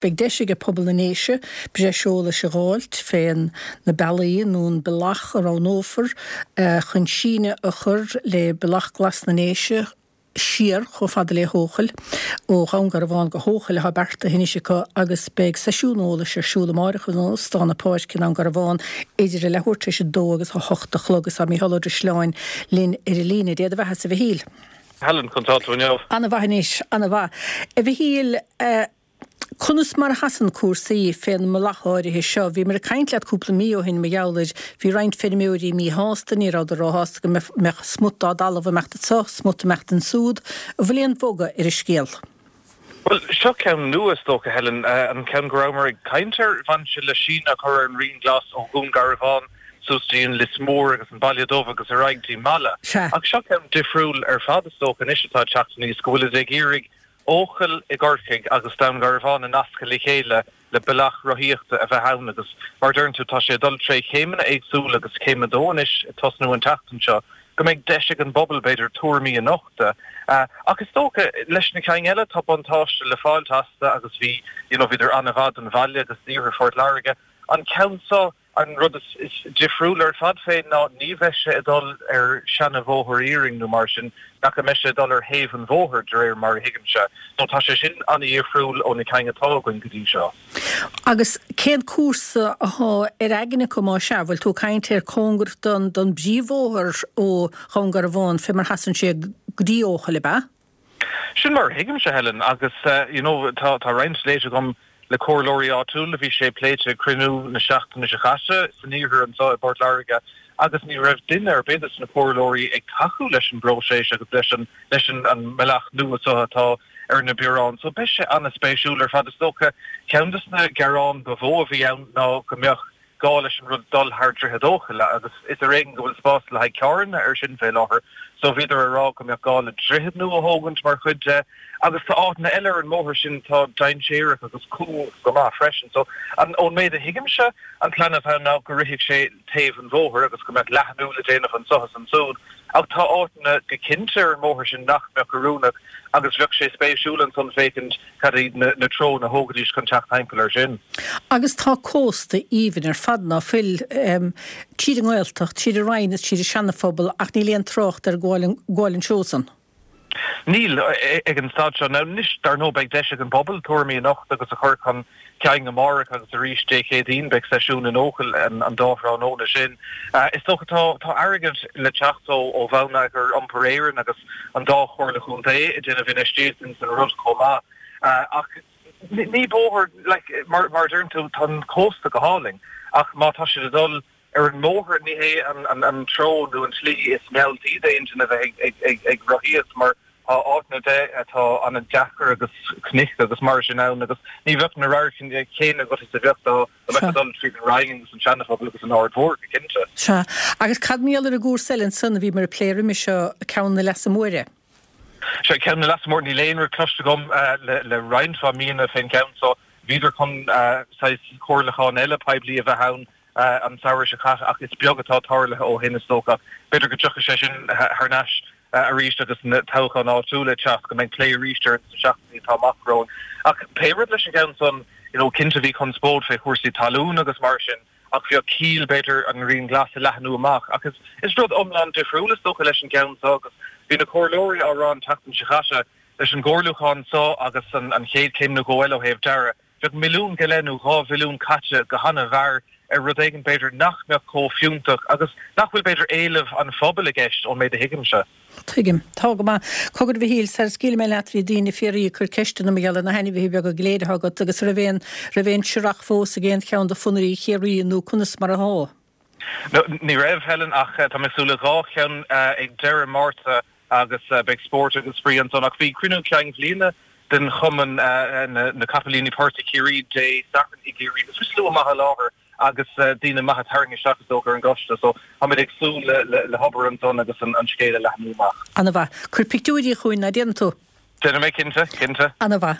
Beidh deis aige pobal na nDéise breis eolais a dh'fháilt fén na bealaí nó an bealach a roghnófar chun síneadh a chur le Bealach Glas na nDéise siar chomh fada le hEochaill. Ó Dhún Garbhán go hEochaill atá beartaithe anois acu agus beidh seisiún eolais ar siúl amáireach in Óstán na Páirce i nDún Garbhán idir a leathuair tar éis a dó agus a hocht a chlog agus tá Mícheál Ó Drisleáin linn ar an líne. Dé do bheathasa a Mhichíl. Helen, conas tá tú inniu? Ana-mhaith anois, ana-mhaith. A Mhichíl, Conas mar a sheasann cúrsaí fén mbealach áirithe seo? Bhíomar ag caint leat cúpla mí ó shin mar gheall air. Bhí roinnt feirmeoirí míshásta, ní rabhadar róshásta go mbeadh smut dá dtalamh ag imeacht anso, smut ag imeacht ansúd. An bhfuil aon bhogadh ar an scéal? Bhuel, seo ceann nua is dócha, Helen. An ceann go rabhamar ag caint air, bhain sé le síneadh a chur ar an Rian Glas ó Dhún Garbhán suas dtí an Lios Mór agus an Baile Dubh agus ar aghaidh dtí Mala. Ach seo ceann difriúil ar fad is dócha anois atá ag teacht aníos, go bhfuilid ag iarraidh Eochaill i gCorcaigh agus Dún Garbhán a nascadh le chéile le bealach rothaíochta a bheith ann agus mar a deireann tú tá sé ag dul tré chéimeanna éagsúla agus céim a dó anois ag tosnú an tseachtain seo go mbeidh deis ag an bpobal b'fhéidir tuairimí a nochtadh. Ach is dócha leis na cinn eile tá buntáiste le fáilt astu agus bhí you know bhíodar an-mhaith don bhaile agus d'iarthar Phort Láirge. An ceann seo An rud is difriúil ar fad fé ná ní bheidh sé ag dul ar seana-bhóthar iarainn nó mar sin, ach go mbeidh sé ag dul ar thaobh an bhóthair, de réir mar a thuigimse. So tá sé sin an-dhifriúil ó na cinn atá againn go dtí seo. Agus cén cúrsa athá ar aigne acu má sea? Bhfuil tú ag caint ar cóngarach don don bpríomhbhóthar ó Dhún Garbhán fé mar sheasann sé go dtí Eochaill, ab ea? Sin mar a thuigimse, Helen, agus you know tá tá roinnt léite agam le comhairleoirí áitiúla, bhí sé pléite ag cruinniú na seachtaine seo caite san iarthar anseo i bPort Láirge agus ní raibh duine ar bith de na comhairleoirí ag tacú leis an bpróiseas agus leis an leis an an mbealach nua seo atá ar na bioráin. So beidh sé an-spéisiúil ar fad. Is dócha ceann de na gearáin ba mhó a bhí ann ná go mbeadh gá leis an rud dul thar Droichead Eochaille agus is ar éigean go bhfuil spás le haghaidh carranna ar sin fé láthair so bhíodar ag rá go mbeadh gá le droichead nua a thógaint mar chuid de agus tá áiteanna eile ar an mbóthar sin atá dainséarach agus cúng go maith freisin so an ón méid a thuigimse an plean atá ann ná go rithfeadh sé taobh an bhóthair agus go mbeadh leathnú le déanamh anso is ansúd ach tá áiteanna go cinnte ar an mbóthar sin nach mbeadh oiriúnach agus bheadh sé spéisiúil ansan féachaint Cad iad na treonna a thógfaidís chun teacht thimpeall air sin? Agus tá cósta aoibhinn ar fad, ná fuil, tríd an nGaeltacht, tríd an Rinn is tríd an Seana-Phobal ach níl aon trácht ar gabháil an treo san. Níl, ag an staid seo. Now anois, dar ndóigh, beidh deis ag an bpobal tuairimí a nochtadh agus a chur chun cinn amárach agus arís Dé Céadaoin beidh seisiún in Eochaill an dá thráthnóna sin. Is dócha tá tá airgead le teacht ó ó Bhonneagar Iompair Éireann agus an dá chomhairle chontae ag déanamh infheistíocht ins an rud chomh maith. Ach ní bóthar, like, mar mar a deireann tú, tá an cósta go hálainn ach má tá siad ag dul ar an mbóthar ní hé an an treo nó an tslí is mealltaí d'aon duine a bheith ag ag ag rothaíocht mar tá áiteanna de atá an-deacair agus cnoic agus mar sin ann agus ní bheadh na radharcanna céanna agat is a bheadh dá mbeifeá ag dul tríd an Rinn agus an Seana-Phobal agus an Aird Mhór, go cinnte. Sea. Agus cad mar gheall ar an gcúrsa eile ansan a bhíomar ag plé roimhe seo, Ceann na Leasa Móire? Sea, Ceann na Leasa Móire, níl aon rud cloiste agam le roinnt mhaith míonna fén gceann so. Bhíodar chun saghas comhairliúchán eile poiblí a bheith ann an samhradh seo caite ach is beag atá tarlaithe ó shin is dócha. B'fhéidir go dtiocfaidh sé sin thar n-ais arís agus na toghcháin áitiúla ag teacht, go mbeidh plé arís air sna seachtainí atá amach romhainn. Ach pé rud leis an gceann san, you know, cinnte bhí conspóid fé chúrsaí talún agus mar sin ach bheadh ciall b'fhéidir an Rian Glas a leathnú amach. Ach is is rud iomlán difriúil is dócha leis an gceann seo agus bhí na comhairleoirí á rá an tseachtain seo caite leis an gcomhairliúchán seo agus an an chéad chéim nó dhó eile ó thaobh dearadh, Bheadh milliún go leith nó 2 mhilliún caite go han-mhear ar rud éigin b'fhéidir nach mbeadh chomh fiúntach agus nach bhfuil b'fhéidir éileamh an phobail i gceist ón méid a thuigimse. Tuigim. Tá go maith. Cogar a Mhichíl, sara scaoilfidh mé leat bhí daoine ag fiafraí ag cur ceisteanna mar gheall ar na hainmhithe beaga go léir atá agat agus raibh aon raibh aon searrach fós ag aon cheann de phonnairí Chiarraí nó conas mar athá? No, ní raibh, Helen, ach tá mé ag súil le dhá cheann ag deireadh Márta agus beidh spórt agus spraoi ansan. Ach bhí cruinniú cinn bhliana den chumann na Capaillíní Portaigh Chiarraí Dé Sathairn i gCiarraí agus bhí slua maith i láthair agus daoine maithe tarraingthe isteach is dócha ar an gcoiste so táimid ag súil le hobair ansan agus an scéal a leathnú amach. Ana mhaith. Cuir pictiúirí chugainn, ná déanfaidh tú? Déanfaidh mé cinnte, cinnte. Ana mhaith.